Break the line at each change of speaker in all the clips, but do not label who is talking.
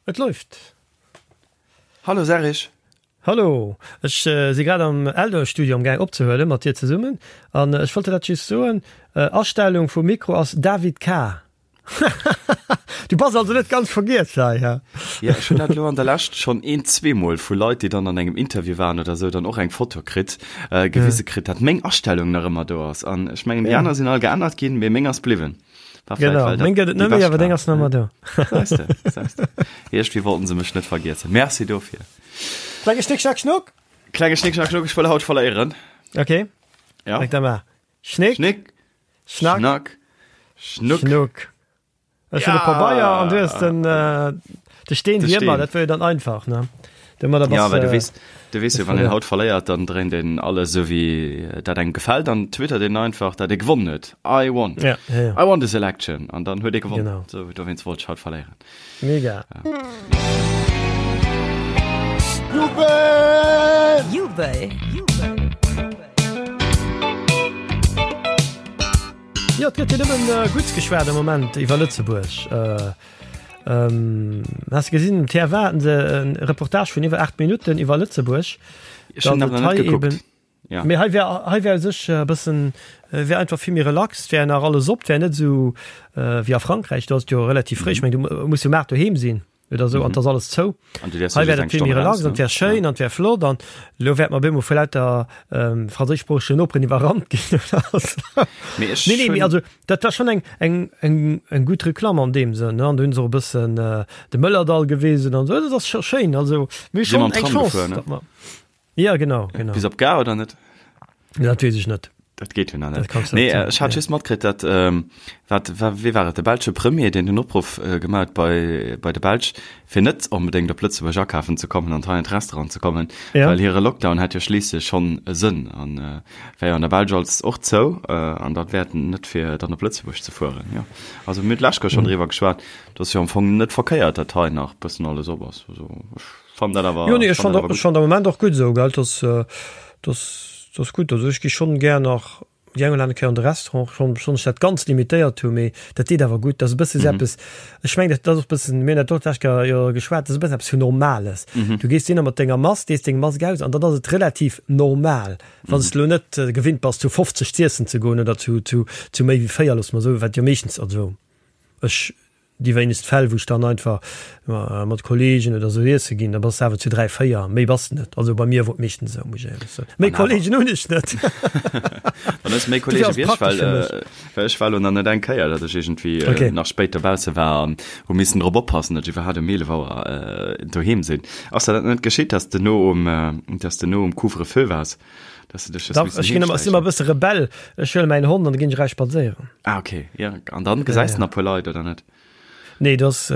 Et läuft.
Hallo Serge.
Hallo, ech si grad am Eldo-Studio am gaang opzehuelen mat dir zesummen an ech wollt dir dat just soen, Astellung vum Mikro ass David K. Du bass also net ganz vergiess hei, he?
Jo, ech hunn dat elo an der Lescht schonn een, zweemol vu Leit, déi dann an engem Interview waren oder esou, dann och eng Foto kritt, gewise kritt, dat meng Astellung nach ëmmer do ass. An ech mengen, déi aner sinn all geännert ginn, mee meng ass bliwwen.
War vielleicht, Genau, meng gëtt et net méi, awer deng ass nach ëmmer do.
Säis de, säis de. Iergendwéi wollten se mech net vergiessen. Merci dofir.
Klenge Schnick, Schnack, Schnuck!
Klenge Schnick, Schnack, Schnuck, ech wëll haut verléieren.
Okay.
Ja.
Da mar. Schnick,
Schnick,
Schnack,
Schnack, Schnuck.
Schnuck. Ech hunn de Pabeier an du hues den, äh, de Steen,
De
wéi ëmmer.
Steen.
Dat wär jo dann einfach, ne? Domadder
Ja,
bass
well du
de.
weess, du weess jo, wann een haut verléiert, dann dréint een alles esou wéi dat engem gefält an twittert een einfach, dat ee gewonnen huet. I won.
Ja, ja, ja.
I won this election. An dann huet ee gewonnen.
Genau.
Sou, dowéinst wollt ech haut verléieren.
Mega.
Jubel!
Jubel!
Jo, et gëtt jo nëmmen Gutts geschwat am Moment iwwer Lëtzebuerg. Has de gesinn, um TF1 haten se e Reportage vun iwwer 8 Minutten iwwer Lëtzebuerg.
Ech hunn awer nach net gekuckt.
Ja. Mee hei wär, hei wär u sech e bëssen, wär einfach vill méi relax, wär nach alles op, wär net esou wéi a Frankräich, do ass et jo relativ fréi. Ech meng, du muss jo um 8 doheem sinn oder esou an et ass alles zou.
An du däerfs
Hei
jo
wär
just
dat
eng
vill méi
Stonn
relax
eraus,
an et
ne?
wär schéin an et wär flott an elo wäerte mer op eemol vu lauter franséischsproochegen Noperen iwwerrannt ginn oder esou.
Mee ech
Nee, nee, mee
hunn.
also dat war schonn eng, eng, eng, eng gutt Reklamm an deem Sënn, ne. An do hunn se och e bëssen de Mëllerdall gewisen an esou. Dat ass scho schéin. Also mir hu
Si
schonn
mam
eng
Tram
Chance,
gefuer, ne?
datt mer. Ja, genau, genau.
Bis op d'Gare oder net?
Dat weess ech net.
Dat geet jo nach
Dat
net.
kanns du
Nee,
net soen,
ech hat
ja.
just matkritt, dat, ähm, wat, wa, wee war et, de belsche Premier, deen den Opruff äh, gemaach huet bei, bei de Belsch, fir net onbedéngt op Lëtzebuerg akafen ze kommen an hei an d'Restaurant ze kommen,
Ja.
well hire Lockdown hätt jo schliisslech schonn e Sënn an äh, wär jo an der Belsch als och zou äh, an dat wäert net fir dann op Lëtzebuerg ze fueren. Jo. Also mir hunn d'lescht Kéier schonn driwwer geschwat, dat ass jo am Fong net verkéiert, dat hei nach bëssen alles op ass. Also ech. Fand dat awer
Jo, nee, ech
fand
fand
dat awer
ech
gutt.
fand am Moment och gutt esou, gell, dass dass dass gutt. Also ech gi schonn gär nach déi eng oder aner Kéier an de Restaurant, schonn schonn ech dat ganz limitéiert hu, mee dat deet awer gutt. Dat ass e bësse sou eppes, ech mengen dat ass och e bëssen, mir hunn dat och d'lescht Kéier jo geschwat, dat ass e bëssen eppes vun Normales. Du gees dohinner mat denger Mask, dees deng Mask aus an dann ass et relativ normal, wann s de elo net gewinnt bass zu 50 z'iessen ze goen oder zu zu zu méi wéi 4, loosse mer soen, wat jo meeschtens, also ech Déi wéinegst Fäll, wou ech dann einfach mat Kollegen oder sou iesse ginn, da bass de awer zu 3, 4, méi bass de net. Also bei mir wor et meeschtens esou, muss ech éierlech soen. Méi Kollegen hunn ech net.
Dann hues de méi Kollege wéi ech, well well ech war elo nach net eng Kéier, datt ech iergendwéi nach spéit dobausse war an hu missen drop oppassen, datt ech iwwerhaapt um 11 Auer doheem sinn. Ass der dat net geschitt, datt s de no um, datt s de no um Couvre-feu waars? Dass du dech
Dach, ech ginn ëmmer, ech sinn ëmmer e bësse Rebell. Ech huele mäin Hond an da ginn ech eraus spadséieren.
Ah, okay. Ja, an dann gesäis de nach e puer Leit, oder net?
Nee, do ass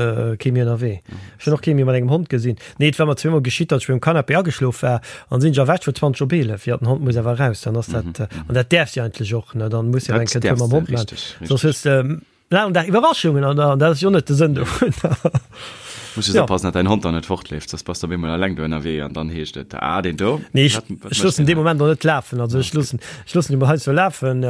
kee méi ënnerwee. Ech hunn och kee méi mat engem Hond gesinn. Nee, et war mer zweemol geschitt, datt ech um Canapé ageschlof war an sinn ech erwächt vun 20 op 11. Jo, den Hond muss awer eraus, dann ass dat, an dat däerfs de eigentlech och, ne? Dann muss jo eng
Dat
Kéier
däerfs
mam
de,
Hond maachen.
richteg,
Soss
richteg.
hues de Laangen Dag Iwwerraschungen an dat ass jo net de Sënn dovun.
Muss just
Ja.
oppassen, dat däin Hond dann net fortleeft, soss bass de op eemol eleng do ënnerwee an dann heescht et, ah, deen do,
Nee, ech,
wat, wat
ech
mécht
loossen
deen
dee
hei?
Moment och net lafen. Also ech loossen, ech loossen e mol heiansdo lafen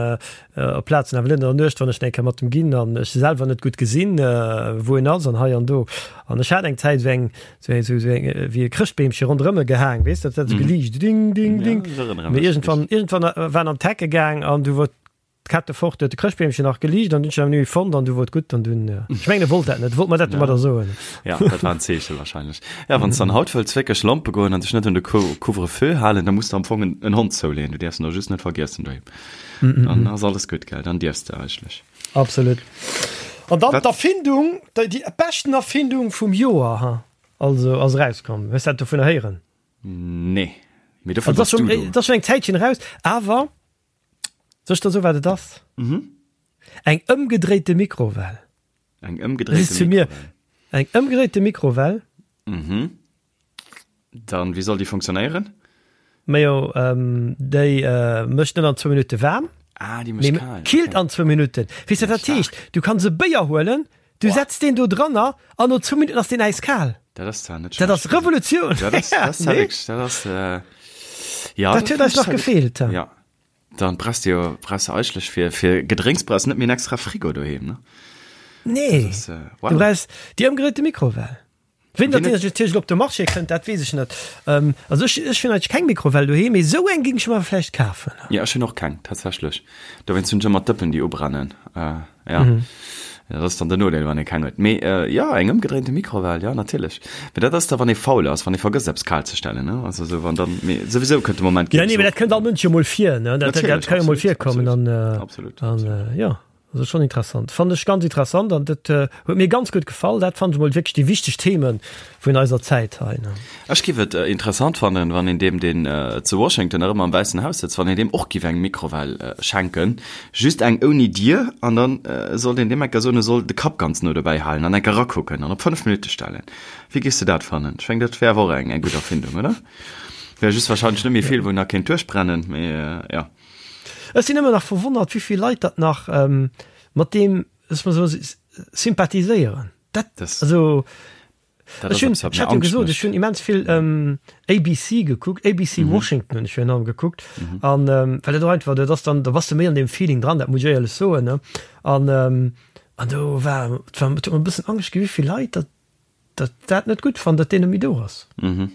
op Plazen, awer net an der Nuecht, wann ech eng Kéier mat em ginn an ech selwer net gutt gesinn, wou en ass an hei an do. An ech hat eng Zäit esou eng, esou eng, esou eng, wéi e Chrëschtbeemche ronderëm e gehaang, weess de, dat hat esou geliicht, ding, ding,
Ja,
ding.
ech erënnere
Mee
mech.
iergendwann, iergendwann war en an d'Hecke gaang an du wor D'Kette fort, huet de Chrëschtbeemchen nach geliicht an dunn hun ech en fonnt an du wor et gutt an dunn, ech mengen e wollt dat net, e wollt mer dat domadder soen.
Ja, dat war en Zeeche wahrscheinlech. Ja, wann s dann haut wëlls wierklech lompe goen an dech net un de Couvre-feu halen, da muss de am Fong en Hond zouleeën, du däerfs en och just net vergiessen doheem. Dann ass alles gutt, gell, dann dierfs de eigentlech.
Absolut. An dann d'Erfindung, déi beschten Erfindung vum Joer, ha, also ass erauskomm. Hues dat dovunner héieren?
Nee, mee dofir
Also,
bass du do.
Et ass schonn eng Zäitchen eraus, awer Soll ech der soen, wat et ass?
Mhm.
Eng ëmgedréite Mikrowell.
Eng
Das ist
ëmgedréite
zu mir.
Mikrowell.
Eng ëmgedréite Mikrowell.
Mhm. Dann, wéi soll déi funktionéieren?
Majo, ähm, déi äh, mécht net an zwou Minutte waarm.
Ah, déi mécht
Mee
kal.
killt
Okay.
an zwou Minutten. Weess de, wat dat heescht? Du kanns e Béier huelen, du
Boah.
setz deen do dranner an no zwou Minutten ass deen äiskal.
Dat ass zwar net
Dat ass
schlecht.
Revolutioun.
Dat ass, dat ass
Nee?
wierklech, dat ass, äh, ja,
Dat huet eis nach gefeelt.
Ja. Dann brauchst du jo, brauchst du eigentlech fir, fir Gedrénks brauchst du net méi en extra Frigo doheem, ne?
Nee.
Das, äh, wow.
Du brauchst déi ëmgedréite Mikrowell. Wéini dat natierlech op de Marché kënnt, dat weess ech net. Also ech, ech hunn eigentlech keng Mikrowell doheem, mee esou eng géing ech mer vläicht kafen.
Jo, ech hunn och keng, tatsächlech. Dowéinst hunn ech ëmmer d'Dëppen, déi ubrennen. Jo, dat ass dann den Nodeel, wann ee keng huet. Mee jo, eng ëmgedréinte Mikrowell, jo, natierlech. Mee dat ass da, wann ee faul ass, wann ee vergësst, eppes kal ze stellen, ne? Also esou, wann dann, mee souwisou kënnt de Moment,
Jo, nee, mee dat kënnt all Mënsch jo mol vir, ne? Dat, dat ka jo mol virkommen an,
absolut, absolut.
jo. Also schon interessant. Fand ech ganz interessant an dat huet mir ganz gutt gefall. Dat fand ech mol wierklech déi wichteg Themen vun eiser Zäit hei.
Ech giff et interessant fannen, wann een deem deen zu Washington nach ëmmer am Wäissen Haus sëtzt, wann een deem och giff eng Mikrowell schenken, just eng ouni Dier, an dann sollt een deem enker soen, e soll de Kapp ganz no dobäi halen an enker rakucken an op 5 Minutte stellen. Wéi giffs de dat fannen? Ech mengen dat wär awer och eng gutt Erfindung, oder? Wär just wahrscheinlech net méi vill wou nach kéint duerchbrennen, mee jo.
Ech sinn ëmmer nach verwonnert, wéi vill Leit dat nach mat deem, lass mer soen, sympathiséieren. Dat, also, ech hunn, ech hat jo gesot, ech hunn immens vill ABC gekuckt, ABC Washington hunn ech virun allem gekuckt, an well dat och einfach, dat ass dann, da bass de méi an deem Feeling dran, dat muss ech éierlech soen, ne. An, an do war, et war, et huet mer e bëssen Angscht ginn, wéi vill Leit dat dat dat net gutt fannen, datt deen net méi do ass. An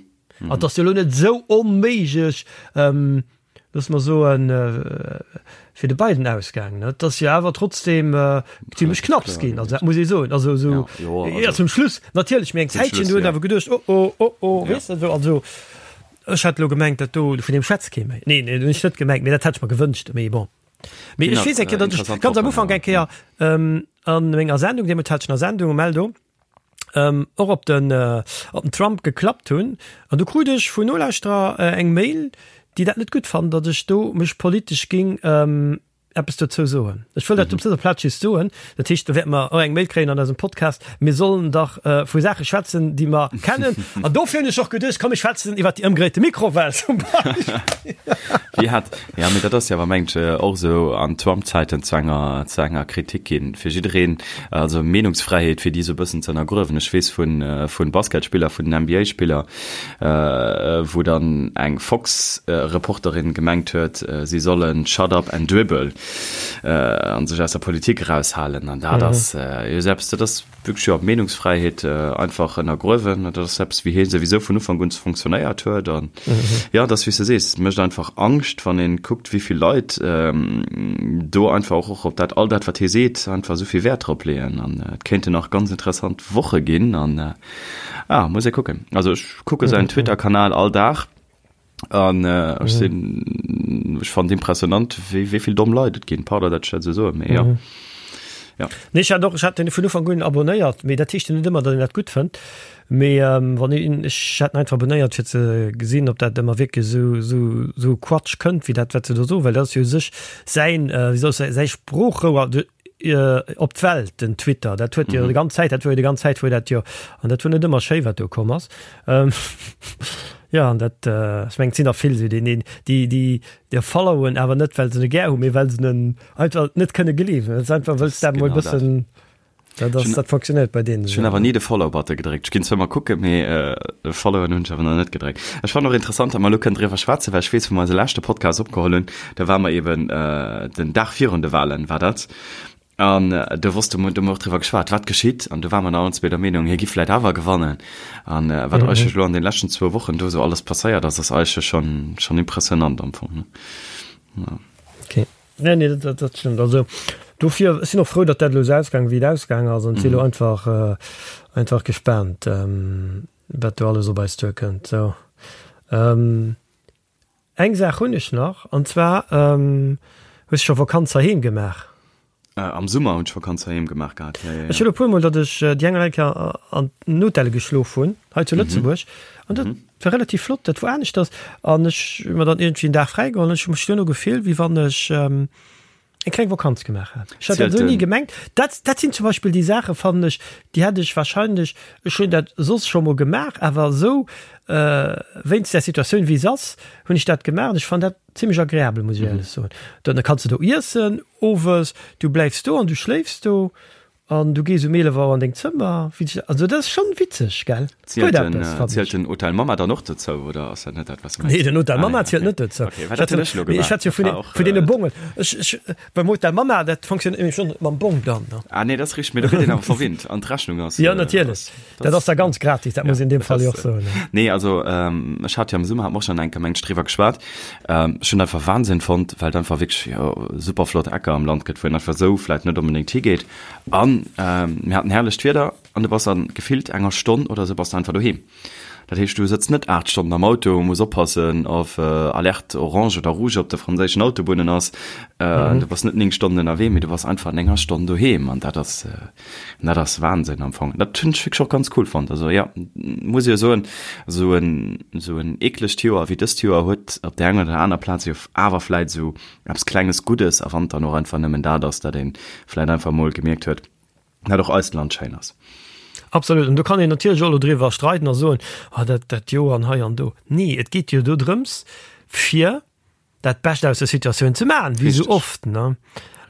et ass jo elo net esou onméiglech, loosse mer soen, fir de Biden ausgaangen. Et ass jo awer trotzdem zimmlech knapps ginn, also dat muss ee soen. Also esou, jo, zum Schluss natierlech, mee eng Zäitchen do huet een awer geduecht, oh oh, oh oh, weess de, esou. Also ech hat elo gemengt, dat do, vun deem schwätzt kee méi. Neen, dat hunn ech net gemengt, mee dat hätt ech mer gewënscht, mee bon. Mee ech weess eng Kéier, datt ech ganz am Ufank eng Kéier an menger Sendung, deemools hat ech nach Sendung um Eldo, ähm, och op den, äh, op den Trump geklappt hunn. An du krut ech vun Nolauschterer äh, eng Mail, déi dat net gutt fannen, datt ech do mech politesch ging ähm, eppes dozou soen. Ech wëll dat op dëser Plaz just soen. Dat heescht, do wäerte mer och eng Mail kréien an eisem Podcast. Mir sollen dach äh, vu Saache schwätzen, déi mer kennen. An dofir hunn ech och geduecht, komm, mir schwätzen iwwer déi ëmgedréite Mikrowell zum Beispill.
Wéi hat, ja, mee dat ass jo awer, mengt ech, och esou an Trump-Zäiten zu enger, zu enger Kritik ginn. Fir jiddereen, Also Meenungsfräiheet fir déi esou e bëssen ze ënnergruewen. Ech weess vun vun Basketspiller, vun den NBA-Spiller, wou dann eng Fox-Reporterin gemengt huet, si sollen shut up and dribble an sech aus der Politik eraushalen. An dat ass jo esou eppes, dat ass wierklech jo Meenungsfräiheet einfach ënnergruewen. Dat ass eppes, wéi hie souwisou vun Ufank un fonctionnéiert huet. An jo, et ass wéi s de sees, et mécht einfach Angscht, wann ee kuckt, wéi vill Leit do einfach och op dat, all dat, wat hie seet, einfach esou vill Wäert drop leeën. An et kéinten nach ganz interessant Woche ginn. An ah, muss ee kucken. Also ech kucke säin Twitter-Kanal all Dag an ech sinn, ech fannen et impressionant, wéi wéi vill domm Leit et ginn. Pardon, datt ech dat esou soen, mee jo.
Ja. Nee, ech hat och, ech hat den vun Ufank un abonnéiert, mee dat heescht jo net ëmmer, datt een dat gutt fënnt. Mee wann een, ech hat en einfach abonnéiert fir ze gesinn, ob dat ëmmer wierklech esou, esou, esou Quatsch kënnt, wéi dat wat se do soen, well dat ass jo u sech säin, wéi soll ech soen, säi Sproochrouer de op d'Welt, den Twitter. Dat huet jo déi ganz Zäit, dat wor jo déi ganz Zäit wor dat jo, an dat wor net ëmmer schéi wat do komm ass. Jo, an dat, ech mengen et sinn der vill esou, déi, déi, déi, déi followen awer net well se e gär hunn, mee well se en einfach net kënne gleewen. Dat ass einfach, wëlls dat mol bëssen, dat ass, dat funktionéiert bei deenen.
Ech hunn awer ni de Follow-Button gedréckt. Ech ginn zwar ëmmer kucken, mee de Followen hunn ech awer nach net gedréckt. Ech fannen och interessant, datt mer elo kënnen driwwer schwätzen, well ech weess, wou mer eise leschte Podcast opgeholl hunn, da ware mer eeben den Dag virun de Walen war dat, an do wosste mer, do hu mer och driwwer geschwat, wat geschitt, an do ware mer nach allen zwee der Meenung, hie giff vläicht awer gewannen. An wat eigentlech elo an den leschten zwou Wochen do esou alles passéiert ass, ass eigentlech schonn, schonn impressionant am Fong, ne?
Ja. Okay. Nee, nee, dat, dat stëmmt. Also dofir, ech sinn och frou, datt dat elo esou ausgaang wéi et ausgaang ass an si elo einfach, äh, einfach gespaant, ähm, wat do alles op eis duerkënnt. Sou. Ähm, eng Saach hunn ech nach, an zwar, ähm, hues du scho Vakanz heiheem gemaach?
Äh, am Summer hunn ech Vakanz heiheem gemaach gehat,
ja, ja, ja. Ech hunn e puermol, datt ech déi eng oder aner Kéier an den Hotelle geschlof hunn, hei zu Lëtzebuerg, an dat war relativ flott, dat wor aneschters an ech hu mer dann iergendwéi en Dag fräi geholl an ech hu mech duerno gefillt, wéi wann ech eng kleng Vakanz gemaach hätt. Ech hat dat esou ni gemengt. Dat, dat sinn zum Beispill déi Saachen, fannen ech, déi hätt ech wahrscheinlech, ech hunn dat soss scho mol gemaach, awer esou wéinst där Situatioun wéi se ass, hunn ech dat gemaach an ech fannen dat zimmlech agreabel, muss ech éierlech soen. Dann kanns de do iessen owes, du bläifs do an du schléifs do. An du gees um 11 Auer an deng Zëmmer. Also dat ass schonn witzeg, gell?
Zielt den, zielt den Hotel Mama dann och dozou oder ass dat net dat,
wat s du mengs? Nee, den Hotel Mama zielt net dozou. Okay, well dat hunn ech elo gemaach. Ech schwätze jo vun den, vun deene Bongen. Ech, ech, beim Hotel Mama, dat fonctionnéiert nämlech schonn mam Bong dann,
ne? Ah nee, dat ass richteg, mee do gëtt een awer verwinnt an d'Rechnung ass.
Jo, natierlech. Dat ass da ganz gratis, dat muss een in deem Fall jo och soen.
Nee, also ech hat jo am Summer, hat mer och schonn eng Kéier, mengen ech, driwwer geschwat. Ech hunn einfach Wahnsinn fonnt, well et einfach wierklech, jo, super flott Ecker am Land gëtt, wou een einfach esou vläit net onbedéngt higeet. An mir haten herrlecht Wieder an du bass an gefillt enger Stonn oder esou bass du einfach doheem. Dat heescht, du sëtz net 8 Stonnen am Auto, muss oppassen, of Alerte orange oder rouge op de franséischen Autobunnen ass. Du bass net 9 Stonnen ënnerwee, mee du bass einfach an enger Stonn doheem an dat ass, Dat ass Wahnsinn am Fong. Dat hunn ech wierklech och ganz cool fonnt. Also ja, muss jo soen, esou en, esou en eeklegt Joer wéi dëst Joer huet op där enger oder aner Plaz jo awer vläit esou eppes klenges Guddes, a wann et dann och einfach nëmmen dat ass, datt ee vläit einfach mol gemierkt huet, dat och eist Land schéin ass.
Absolut. An do kann een natierlech och elo driwwer streiden a soen, ah dat, dat Joer an hei an do. Nee, et geet jo do drëms, fir dat Bescht aus der Situatioun ze maachen, wéi sou oft, ne?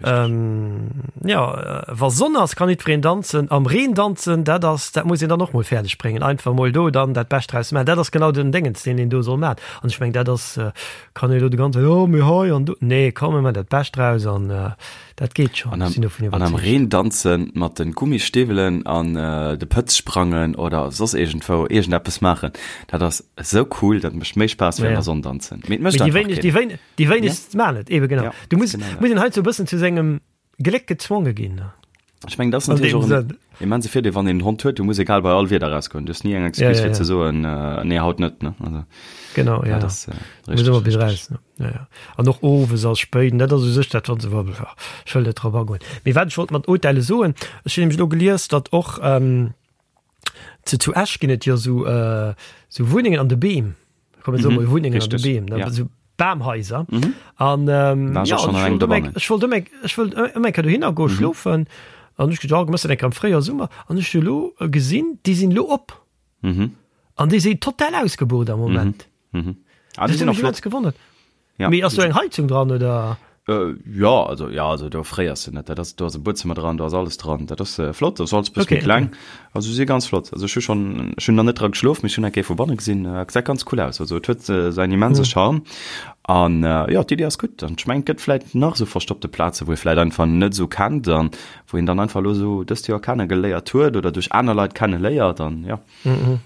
Ähm, ja, wa Sonn ass, kann jiddwereen danzen. Am Reen danzen, dat ass, dat muss een dann och mol fäerdeg bréngen. Einfach mol do dann dat Bescht draus maachen. Dat ass genau den Déngens, deen een do soll maachen. An ech meng, dat ass, kann ee lo de ganze, jo, mee hei an do. Nee, komm, mir maachen dat Bescht draus an dat geet schonn.
An am,
Sinn dovun
an am
iwwerzeegt.
Reen danzen mat de Gummistiwwelen an de Pëtz sprangen oder soss iergendwou iergendeppes maachen, Dat ass esou cool, dat mécht méi Spaass wéi an der Sonn danzen.
Mee et mécht einfach keen. Déi wéineg, déi wéinegst maachen et, eben genau. Du muss, muss een heiansdo e bëssen zu sengem Gléck gezwonge ginn.
Ech mengen, dat ass natierlech och en immense Virdeel, wann een en Hond huet. Du muss egal bei all Wieder rausgoen. Du hues ni eng Excuse fir ze soen, nee, haut net, ne?
Also, genau, ja. Dat ass richtig. Muss ëmmer bis raus, ne? Ja, ja. An och owes ass spéit, dat ass u sech dat, wann se, ech wëll net drop agoen. Mee wat ech wollt mat Hotelle soen, ech hunn nämlech elo gelies, datt och, Zu, zu Esch ginn et jo sou, äh, sou Wunnengen an de Beem. Komm, mir soe mol Wunnengen an de Beem, ne? Ja. Sou Bamhaiser. Mhm. An ähm, ja, an ech wollt ëmmer, ech wollt ëmmer, ech wollt ëmmer eng Kéier dohinner goe mhm. schlofen. An ech gedacht, oh, eng am fréier Summer. An ech hu lo gesinn, déi sinn lo op. Mhm. An déi sinn total ausgebucht am Moment.
Mhm. Mhm.
Ah, déi sinn och flott. Gewonnert.
Ja.
Mee ass do eng Heizung dran oder?
Äh, ja, also, ja, also do fréiers du net. Dat ass, do ass e Buedzëmmer dran, do ass alles dran. Dat ass äh, flott, dat ass alles bësse méi
Okay,
kleng.
okay.
Also si ganz flott. Also ech hu schon, ech hunn nach net dra geschlof, mee ech hunn eng Kéier vu banne gesinn. Äh, gesäit ganz cool aus. Also et huet äh, säin immense
Mhm.
Charme. An äh, ja, d'Iddi ass gutt. An ech mengen, et gëtt vläit nach esou verstoppte Plaze, wou ee vläit einfach net esou kennt an wou een dann einfach elo esou dëst Joer kenne geléiert huet oder duerch aner Leit kenne léiert an ja.
Mhm.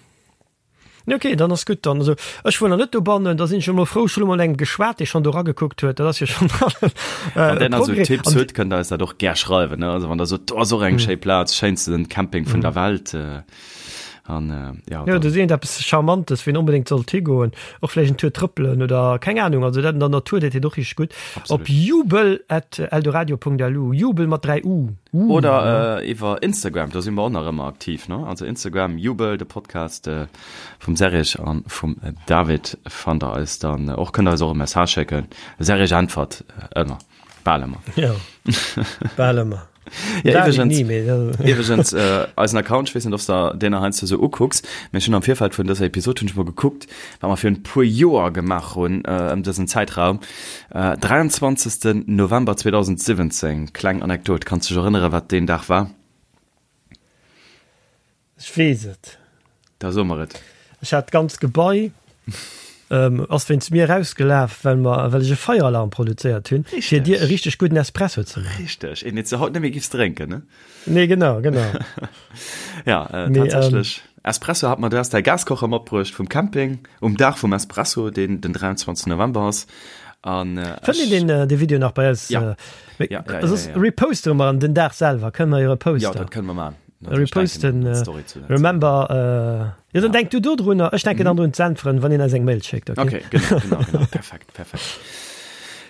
Ok, dann ass gutt. Dann, also ech wuer nach net dobannen, da sinn ech emol frou, ech hunn elo mol engem geschwat, dee schonn do eragekuckt huet, dat ass jo schonn
e Wann der nach esou Progrès. Tipps hutt, kënnt der eis dat och gär schreiwen, ne? Also wann der sot, do ass och eng schéi Plaz, schéinsten Camping vun der Welt, an
ja, Jo, do seet eppes Charmantes, wou een onbedéngt sollt higoen, och vläicht en Tour trëppelen oder keng Anung, also dat an der Natur, dat deet och richteg gutt. Op jubel at eldoradio.lu, Jubel mat 3 U.
Oder iwwer Instagram, do si mer och nach ëmmer aktiv, ne? Also Instagram, Jubel, de Podcast vum Serge an vum David fannt der eis dann och. Kënnt der eis och e Message schécken. De Serge äntwert ëmmer, bal ëmmer.
Jo, bal ëmmer.
Ja, iwweregens, iwweregens eisen Account, ech weess net, ob s de deen nach heiansdo sou ukucks, mee ech hunn am Virfeld vun dëser Episod hunn ech mol gekuckt, wat mer virun e puer Joer gemaach hunn ëm dësen Zäitraum. 23. November 2017, kleng Anekdot, kanns dech erënneren, wat deen Dag war?
Ech weess et.
Da so mer et.
Ech hat d'ganzt Gebai ass wéinst mir erausgelaf, well mer, well ech e Feieralarm produzéiert hunn, fir dir e richteg gudden Espresso ze
maachen. Richteg, een, deen s de haut net méi giffs drénken, ne?
Nee, genau, genau.
Ja, tatsächlech. Espresso hat mer, du has däi Gaskocher matbruecht vum Camping um Dag vum Espresso, deen den 23. November ass.
An Fënnt een deen dee Video nach bei eis?
Ja.
Ja, ja, ja, ja, ja. Repostere mer en den Dag selwer, kënne mer jo reposten.
Ja, dat kënne mer maachen.
Reposten, remember, jo, dann denk du do drunner, ech denken dann drun z'äntweren, wann een eis eng Mail schéckt,
okay? Okay, genau, genau, genau, perfekt, perfekt.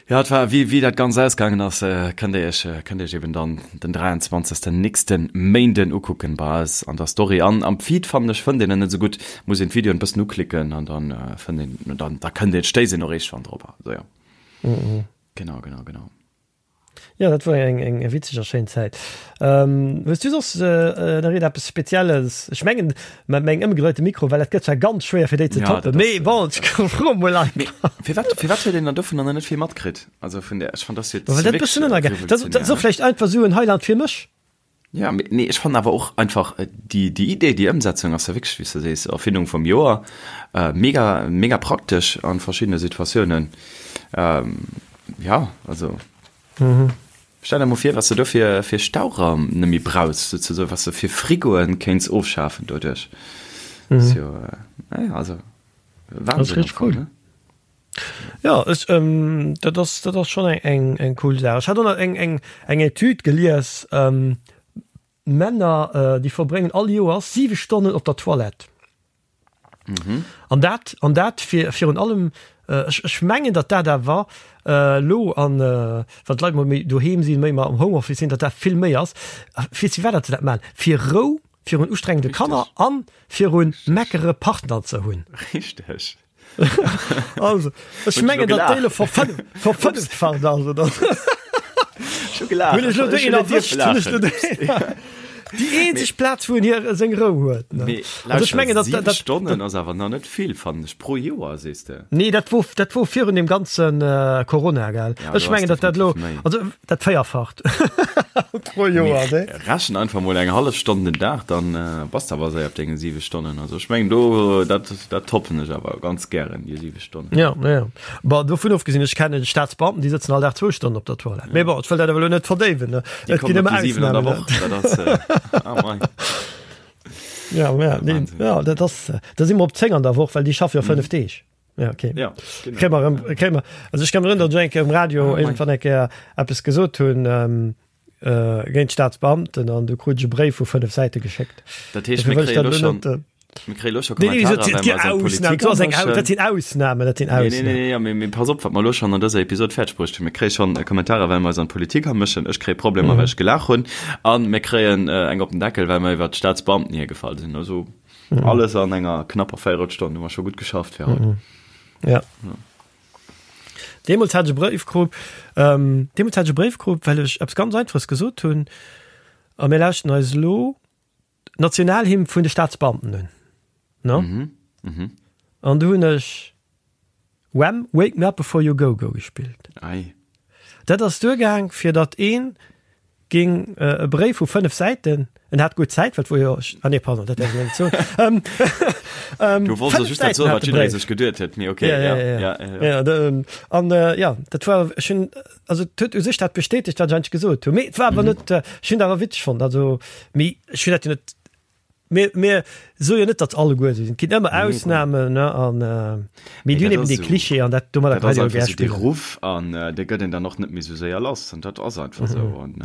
Ja, et war, wéi, wéi dat Ganzt ausgaangen ass, kënnt Dir Iech, kënnt Dir Iech eben dann den 23. nächste Méinden ukucken bei eis an der Story. An am Feed fannen ech, fënnt een en net esou gutt, muss een d'Videoen e bëssen uklicken an dann fënnt een, dann, da kënnt een, stéisst een och eeschtwann drop. Also
jo.
Genau, genau, genau.
Jo, dat wor eng eng witzeg a schéin Zäit. Hues du soss nach iergend eppes Spezielles? Ech mengen mat mengem ëmgedréite Mikro, well dat gëtt zwar ganz schwéier fir déi ze toppen, mee bon, ech froe mol
einfach. Firwat firwat huet een dann dovunner nach net vill matkritt? Also vun där, ech fand
dat jo Well dat e bëssen ënnergaang. Dat ass och vläicht einfach esou en Highlight fir mech.
Ja, mee nee, ech fannen awer och einfach déi, déi Idee, déi Ëmsetzung ass ja wierklech, wéi s de sees, Erfindung vum Joer. Mega, mega praktesch an verschiddene Situatiounen. Ja, also. Stell der mol vir, wat s de do fir, fir Stauraum net méi brauchs, souzesoen, wat s de fir Frigoen kéints ofschafen doduerch. Ass jo, naja, also
Wahnsinn. Dat ass richteg cool. Ne? Ja, ech, ähm, dat ass, dat ass schonn eng, eng, eng cool Saach. Ech hat och nach eng, eng, eng Etüd gelies, ähm, Männer, äh, déi verbréngen all Joers siwe Stonnen op der Toilette. Mhm. An dat, an dat fir, virun allem, äh, ech, ech mengen, datt dat awer äh, lo an, äh, wann d'Leit mol méi doheem sinn, méi am Homeoffice sinn, datt dat vill méi ass. Fir firwat datt se dat maachen? Fir Rou virun ustrengende Kanner an virun meckere Partner ze hunn.
Richteg.
Also, ech mengen, datt déi elo verfënneffacht ass, oder?
Ech hu gelaacht.
Hunn ech elo déi een erwëscht? Hunn ech elo déi. Déi eenzeg Plaz, wou en hir seng Rou huet, ne?
Mee
Also ech mengen, datt,
siwe
datt,
Stonnen ass awer nach net vill, fannen ech, pro Joer, sees de?
Nee, dat wor, dat wor virun deem ganze Corona, gell?
Ja,
Ech
do ass
mengen, datt dat elo,
definitiv méi.
also dat Véierfacht pro Joer,
ne? Rechen einfach mol eng hallef Stonn den Dag, dann bass de awer séier op denge 7 Stonnen. Also ech mengen do, dat, dat toppen ech awer ganz gären, déi 7 Stonnen.
Ja, ja. Bon, dovun ofgesinn, ech kennen Staatsbeamten, déi sëtzen all Dag zwou Stonnen op der Toilette. Mee bon, ech wëll dat awer elo net verdéiwen, ne?
Déi
Et ginn
kommen op
ëmmer
déi 7 an der
Ausnamen,
Woch, dat ass, ah mei.
Ja, ja, nee,
Wahnsinn.
ja, dat ass, da si mer op 10 an der Woch, well déi schaffe jo 5 Deeg. Ja, okay.
Ja, genau.
Kréie mer erëm, kréie mer, also ech kann mech erënneren, datt ech eng Kéier um Radio
Ah, mei.
iergendwann eng Kéier eppes gesot hunn, ähm, äh, géint d'Staatsbeamten an du krut ech e Bréif vu 5 Säite geschéckt.
Dat heescht,
Dofir
mir
wëll ech
kréie
dat
elo
elo
schonn,
net, äh,
mir kréie elo scho
Nee, nee,
Kommentarer,
dat
well
gi
mer eis an
Ausnamen,
d'Politik
dat ass eng Au-
amëschen.
dat sinn Ausnamen, dat sinn
Nee, nee, nee,
Ausnamen.
nee, ja, mee, mee pass op, wat mer elo schonn an dëser Episod fäerdeg bruecht hunn. Mir kréie schonn Kommentarer, well mer eis an d'Politik amëschen. Ech kréie Problemer,
Mhm.
well ech gelaach hunn. An mir kréien äh, eng op den Deckel, well mer iwwer d'Staatsbeamten hiergefall sinn. Also
Mhm.
alles an enger knapper Véierelstonn hu mer scho gutt geschafft fir haut.
Mhm. Ja. Deemools hat ech e Bréif krut, ähm, deemools hat ech e Bréif krut, well ech eppes ganz Einfaches gesot hunn, a mir lauschten eis elo d'Nationalhymn vun de Staatsbeamten un, ne?
Mhm. Mhm.
An du hunn ech Wham! Wake Me Up Before You Go Go gespillt.
Ei.
Dat ass duergaang, fir datt een ging e Bréif vu 5 Säiten, en hat gutt Zäit, well et wor jo, ah nee, pardon, dat däerf ech net soen. Ähm, ähm,
Du wollts
5
just dat
Säiten
soen,
hat
wat
de
jidderee
Bréif.
sech geduet huet, mee okay,
Ja,
ja,
ja, ja.
ja, ja, ja.
Ja, de, an äh, ja, dat war, ech hunn, also et huet u sech dat bestätegt, wat ech eigentlech gesot hunn, mee et war awer
Mhm.
net, ech hunn et awer witzeg fonnt, also, mee ech hunn dat jo net Mir, mir soe jo net, datt alleguer esou sinn. Et ginn ëmmer Ausnamen, ne, an mee
Mee
déi hunn
dat
eben
ass
dee
esou,
Klischee an dat domadder
dat
kann
ass
een jo
einfach
gär
esou dee
spillen.
Ruff an dee gëtt een dann och net méi esou séier lass an dat ass einfach esou an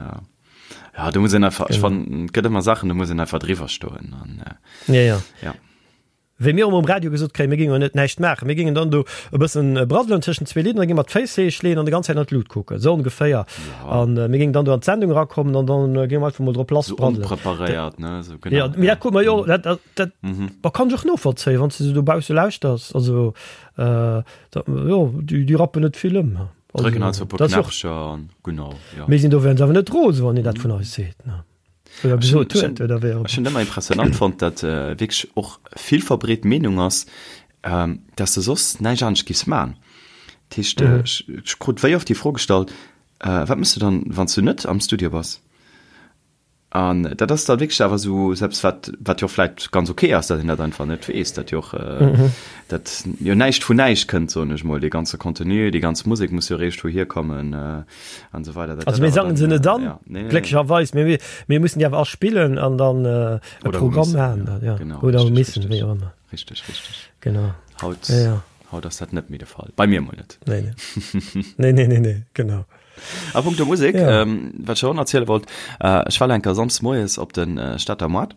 ja, do muss een einfach, ech
Genau.
fannen, et gëtt ëmmer Saachen, do muss een einfach driwwer stoen an
Ja, ja.
ja.
Wéi mir um Radio gesot kréien, mir géingen jo net näischt maachen, mir géingen dann do e bëssen braddelen tëschent zwee Lidder, da géinge mer d'Féiss héich leeën an de ganz Zäit an d'Lut kucken, esou ongeféier.
Ja.
An mir géingen dann do an d'Sendung erakommen an dann géinge mer einfach mol drop lass
Esou
braddelen.
onpreparéiert, ne, esou, genau.
Ja, mee dat krute mer jo, dat, dat, dat
Mhm.
bah, kann ech och novollzéien, wann s de se dobausse lauschters. Also, äh, da, jo, déi, déi rappen net vill ëm. Also,
Drécken halt esou e puer
dat ass jo och.
Knäppcher an genau, ja.
Mir sinn dowéinst awer net rose, wann een dat vun eis seet, ne. Oder
Ech hunn
gesot huet, oder wéi och
ech hunn ëmmer impressionant fonnt, datt wierklech och vill verbreet Meenung ass, datt s de soss näischt anescht giffs man. Dat heescht, ech krut wéi oft déi Fro gestallt, Wat méchs du dann, wann s du net am Studio bass? An dat ass da wierklech awer esou eppes, wat wat jo och vläicht ganz ok ass, datt een dat einfach net weess, datt jo och datt jo näischt vun näischt kënnt, soen ech mol. Dee ganze Contenu, déi ganz Musek muss jo eréischt wouhier kommen. An so weiter.
Also mir sangen se net an, ja. nee, nee, glécklecherweis, mir, mir mussen déi awer aspillen an dann äh, e Programm maachen. Ja.
Genau,
Oder
richtig,
missen,
richtig.
wéi och ëmmer.
Richtig, richtig.
Genau.
Haut,
ja, ja.
haut ass dat net méi de Fall. Bei mir mol net.
Nee, nee. nee, nee, nee, nee, genau.
A punkto Musek,
ja.
ähm, wat ech och erziele wollt, äh, ech war enker samsdes moies op den äh, Stater Moart.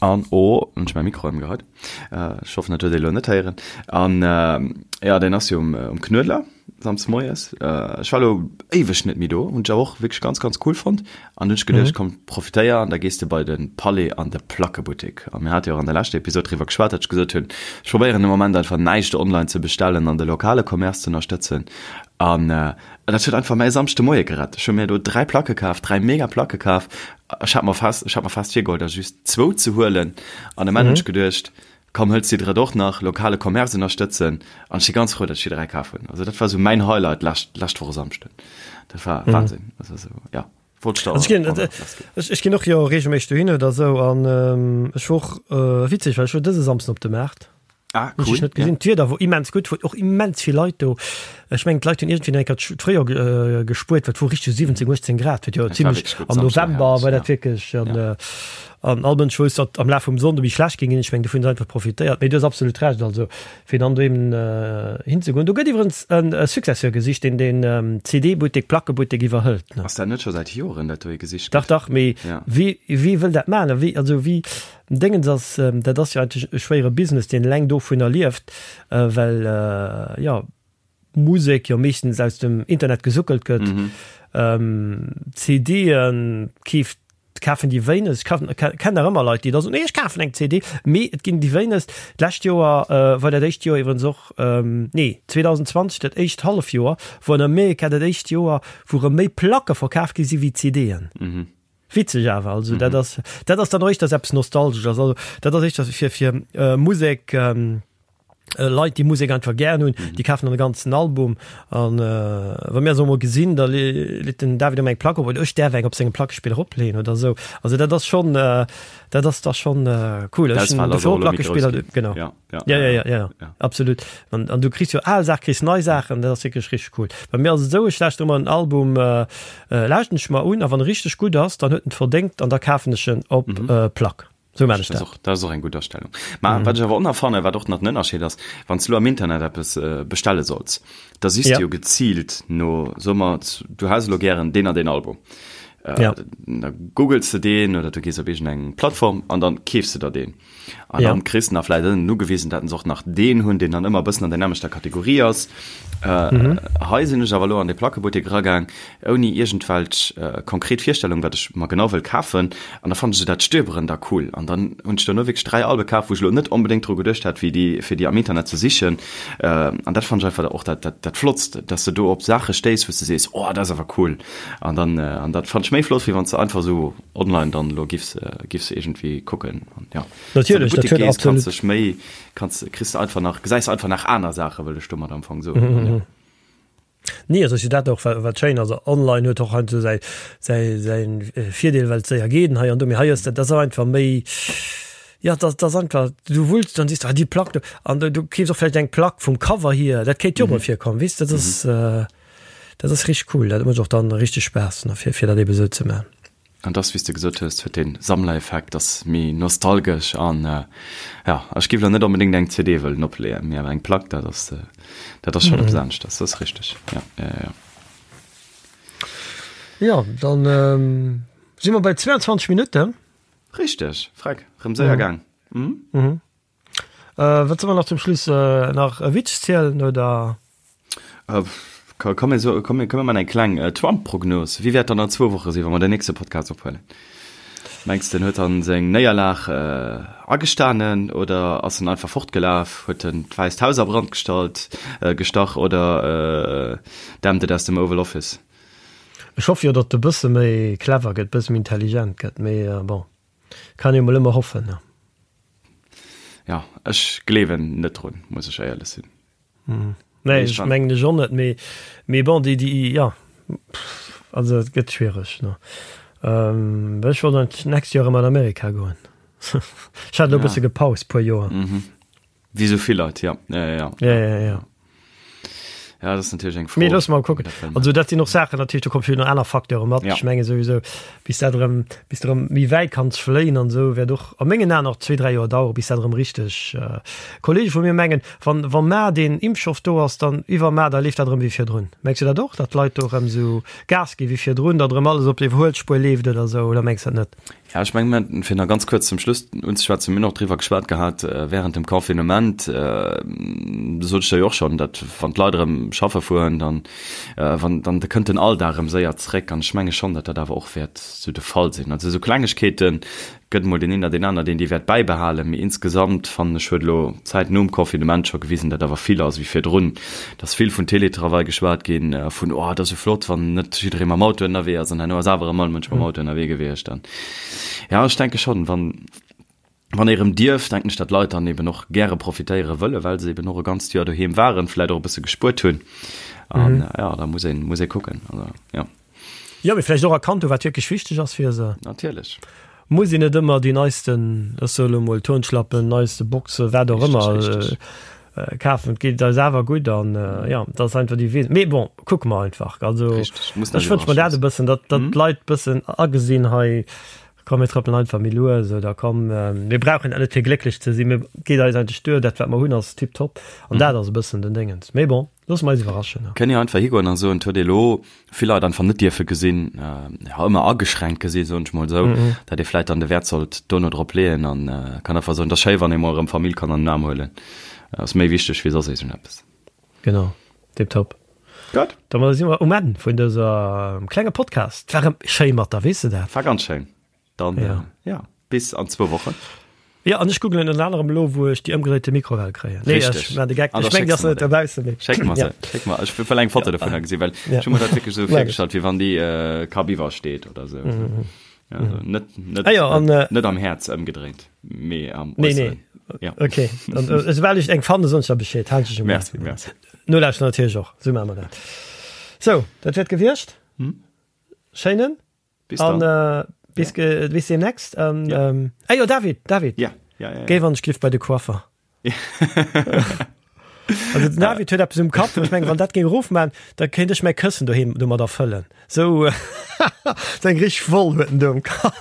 An oh, hunn ech mäi Mikro ëmgeheit. Äh, ech hoffen, dat huet ee lo net héieren. An äh, ja, deen ass jo um, um Knuedler, samsdes moies. Äh, ech war lo éiweg net méi do, hunn ech awer och wierklech ganz, ganz cool fonnt. An hunn ech geduecht, komm, profitéier an da gees de bei de Palais an de Plackebuttek. A mir hate jo och an der leschter Episod driwwer geschwat, datt ech gesot hunn, ech probéieren de Moment einfach näischt online ze bestellen an de lokale Commerce ze ënnerstëtzen. An äh, dat huet einfach mäi Samschdemoie gerett. Ech hu mir do 3 Placke kaf, 3 mega Placke kaf. Ech hat mer fest, ech hat mer fest virgeholl, der just zwou ze huelen. An um Enn hunn ech geduecht, komm, hëls déi drëtt och nach, lokale Commerce ënnerstëtzen. An ech si ganz frou, datt ech déi 3 kaf hunn. Also dat war esou mäin Highlight lescht, lescht Woch e Samschden. Dat war Wahnsinn. Also esou, ja. Wollt ech da Also ech ginn, och nach lassginn.
ech, ech ginn och jo regelméisseg dohin oder esou an ech wor och, witzeg, well ech wor dëse Samsden op de Maart.
Ah,
Hunn ech
cool,
dech net
ja.
gesinn. D'Wieder wor immens gutt, wor och immens vill Leit do. Ech mengen d'Leit hunn iergendwéi nach eng Kéier d'Fréijoer gespuert, well et wor richteg 17, 18 Grad, huet jo
Et war
zimlech
wierklech gutt,
am
Samschden
November
herrlech,
war
ja.
dat wierklech an
Ja.
an all Mënsch wousst, datt am Laf vum Sonnde méi schlecht géing ginn. Ech mengen dovun hunn se einfach profitéiert. Mee du hues absolut Recht, also fir dann do eben hinzegoen. Do gëtt iwwerens e Successeur gesicht, deen den CD-Buttek, Plackebuttek iwwerhëlt, ne?
Ass dat net scho säit Joren, dat do ee gesicht
Dach,
gëtt?
dach, mee
Ja.
wie, wie wëll dat maachen? A wie, also wie, Dingens ass, dat ass jo eigentlech e schwéiere Business, deen eleng dovunner lieft, well, jo, Musek jo meeschtens aus dem Internet gesuckelt gëtt. CDe keeft, kafen déi wéinegst. Ech kennen nach ëmmer Leit, déi da soen, nee, ech kafen eng CD, mee et ginn déi wéinegst. D'lescht Joer war dat éischt Joer iwwerens och, nee, 2020, dat éischt Hallefjoer, wor an Amerika dat éischt Joer, wou erëm méi Placke verkaf gi si wéi CDen. Witzeg awer, also dat ass, dat ass dann och éischters eppes Nostalgesches, also dat ass éischters fir, fir Musek, Leit déi Musek einfach gären hunn, déi kafen dann e ganzen Album an wa mir se emol gesinn, da leet den David ëmmer eng Plack op oder ech däerf eng op sengem Plackespiller opleeën oder esou. Also dat ass schonn, dat ass da schonn cool. Ech hunn dofir och Plackespiller, genau.
Ja,
ja, ja, ja, ja, ja. Absolut. An, an du kriss jo al Saachen, kriss nei Saachen, dat ass wierklech richteg cool. Bei mir ass et esou, ech lauschteren ëmmer en Album, lauschten ech mer un a wann e richteg gutt ass, dann huet en et verdéngt an da kafen ech en op Plack. Sou maan ech
Dat
dat.
ass och, dat ass och eng gutt Astellung. Ma wat ech awer och nach fannen, wat och nach den Ënnerscheed ass, wann s du elo am Internet eppes bestelle solls, da sichs
Ja.
du jo geziilt no, soe mer, du häss elo gären deen an deen Album.
Ja.
Da googles de deen oder du gees op iergendeng Plattform an dann keefs de der deen. An
Ja.
dann kriss de nach vläicht ënnen ugewisen, dat se och nach deen hunn, deen dann ëmmer e bëssen an der nämmlechter Kategorie ass.
Mhm.
Hei sinn ech awer elo an de Plackebuttek eragaang, ouni iergendwelch konkret Virstellung, wat ech mer genau wëll kafen. An da fannen ech dat Stöberen da cool. An dann hunn ech duerno wierklech 3 Albe kaf, wou ech elo net onbedéngt dru geduecht hätt, wéi déi, fir déi am Internet ze sichen. An dat fannen ech einfach och dat, dat, dat Flottst, dass de do op Saache stéiss, wou s de sees, oh, dat ass awer cool. An dann, an dat fannen ech méi flott, wéi wann s de einfach esou online dann elo giffs, giffs iergendwéi kucken. An jo, wann s de an de
Natierlech, dat
Buttek
huet
gees, kanns
absolut.
dech méi, kanns, kriss de einfach nach, gesäis einfach nach aner Saachen, wëll ech domat am Fong soen. An jo.
Nee, also ass jo dat och wat schéin ass. Online huet och heiansdo säi säi säi Virdeel, well et séier geet an hei an do. Mee hei ass dat, dat ass einfach méi, jo, dat ass einfach, du wulls, dann siehst du, ah déi Plack do an du keefs och vläicht eng Plack vum Cover hier, dat kéint jo och mol virkommen, weess de. Dat ass dat ass richteg cool, dat mécht och dann richteg Spaass, ne, fir fir dat eebe sou ze man.
An dass, wéi s de gesot hues, huet dee Sammlereffekt, ass méi nostalgesch an jo, ech géif elo net onbedéngt eng CD wëllen opleeën, mee awer eng Plack, dat ass, dat ass schonn eppes aneschters, dat ass richteg, jo, jo, jo.
Jo, dann si mer bei 22 Minutten.
Richteg, freck, rëm séier gaang.
Wat soll mer nach zum Schluss nach e Witz zielen oder?
Komm mir so, komm mir man eng kleng Trump-Prognos. Wéi wäert dann an zwou Woche sinn, wa mer den nächste Podcast ophuelen? Mengs de, en huet dann seng Néierlag agestanen oder ass en einfach fortgelaf, huet en d'Wäisst Haus a Brand gestallt, gestach oder dämpt et aus dem Oval Office?
Ech hoffe jo, datt e bësse méi clever gëtt, bësse méi intelligent gëtt, mee bon, kann ee mol ëmmer hoffen, ne?
Ja, ech gleewen net drun, muss ech éierlech sinn.
Mm. Nee, ech mengen ech och net, mee, mee bon, déi, déi, ja, also et gëtt schwiereg, ne. Ähm, ech wollt eigentlech d'nächst Joer erëm an Amerika goen. Ech hat elo e bësse gepaust, puer Joer.
Mhm. Wéi sou vill Leit, ja. Ja, ja,
ja. Ja, ja, ja.
Ja, dat ass natierlech eng Fro.
Mee loosse mer kucken. Also dat sinn och Saachen natierlech, do komme vill nach aner Facteure mat. Ja. Ech menge souwisou, bis dat erëm, bis de erëm méi wäit kanns fléien an esou, wäert och a mengen Aen nach zwee, dräi Joer dauere bis dat erëm richteg. Kollege vu mir mengen, wann, wa mar deen Impfstoff do ass, dann iwwermar, da leeft dat erëm wéi virdrun. Mengs du dat och, datt d'Leit do erëm esou Gas gi wéi virdrun, datt erëm alles op d'Iwwerhuelspuer leeft oder esou, oder mengs du dat net?
Ja, ech mengen, mir, fir nach ganz kuerz zum Schluss unzeschwätzen, mir hunn och driwwer geschwat gehat während dem Confinement, do sot ech der jo och schonn, datt wann d'Leit erëm schaffe fueren, dann, wann, dann da kënnt den Alldag erëm séier zréck. An ech menge schonn, datt dat awer och wäert esou de Fall sinn. Also esou Klengegkeete gëtt emol deen een oder deen aner, deen déi wäert bäibehalen, mee insgesamt fannen ech, huet elo d'Zäit nom Confinement scho gewisen, datt awer vill ass wéi virdrun. Et ass vill vun Télétravail geschwat ginn, vun, oh, et ass esou flott, wann net jidderee mam Auto ënnerwee ass. An herno ass awer erëm all Mënsch mam Auto ënnerwee gewiescht. An ja, ech denke schonn, wann, wann ee erëm dierf, denken ech, datt d'Leit dann eben och gäre profitéiere wëllen, well se eben och e ganzt Joer doheem waren, vläicht och e bësse gespuert hunn. An ja, da muss een, muss ee kucken. Also, ja.
Jo, mee vläicht och erkannt hu wat wierklech wichteg ass fir se.
Natierlech.
Muss een net ëmmer déi neisten, ech soe lo mol Turnschlappen, neiste Boxe, wat och ëmmer kafen. Et geet eis awer gutt an jo, dat ass einfach déi Wee. Mee bon, kucke mer einfach. Also ech wënsch mer dat e bëssen, datt datt d'Leit bëssen agesinn hei, komm mir trëppelen einfach méi lues oder komm mir brauchen dat net fir glécklech ze sinn, mir geet eis eigentlech duer, dat wat mer hunn ass tiptop an dat ass e bëssen den Déngens. Mee bon. Loosse mer eis iwwerraschen.
Kënnt Dir einfach higoen a soen, et huet ee lo vill Leit einfach net dierfe gesinn, jo ëmmer ageschränkt gesinn, soen ech mol esou, datt ee vläit dann de Wäert sollt dono drop leeën an kann einfach soen, et ass schéi wann ee mol erëm Famill kann an den Aarm huelen, ass méi wichteg wéi soss iergendeppes.
Genau, tiptop.
Gutt.
Domadder si mer um Enn vun dëser klenge Podcast. War erëm schéi mat der, weess de dat?
War ganz schéin. Dann ja. ja bis an zwou Wochen.
Ja an ech googlen ënner anerem elo wou ech déi ëmgedréite Mikrowell kréien.
Nee, ech
man de Geck. Ech meng, dass net dobausse
méi. Schéck mer se. Schéck mer. Ech wëll eng Foto dovunner gesinn, well ech hu mer dat wierklech esou virgestallt, wéi wann déi äh, Kapp iwwer steet oder sou. Mhm. Ja, also net, net,
ah, ja, an,
net, net am Häerz ëmgedréint, mee am
nee, nee.
Ja.
Okay. An, äh, soubal ech eng fanne, soen ech der Bescheed.
Halt ech um. Merci, merci.
Nolauschteren natierlech och. Sou maache mer dat. Sou, dat wäert gewiescht.
Hm?
Schéinen.
Bis dann.
An, äh, bis, ja. bis demnächst. Ähm, ja. ähm, ah, jo, David, David.
Ja. Ja, ja, ja.
Géif an ech bei de Coiffer. Also den David huet eppes um Kapp, ech meng wann dat géing erofman, da kéint ech mäi Këssen doheem domat erfëllen. Sou sou eng richteg Woll huet en do um Kapp.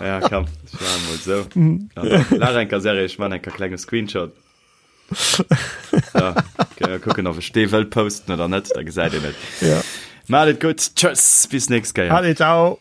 Ja komm, ech maache mol sou. Laach eng Kéier Serie, ech man eng Kéier klenge Screenshot. So, kucken ob ech dee wëll posten oder net, da gesäit een et.
Ja.
Maat et gutt, tschëss, bis nächst Kéier.
Allez, ciao.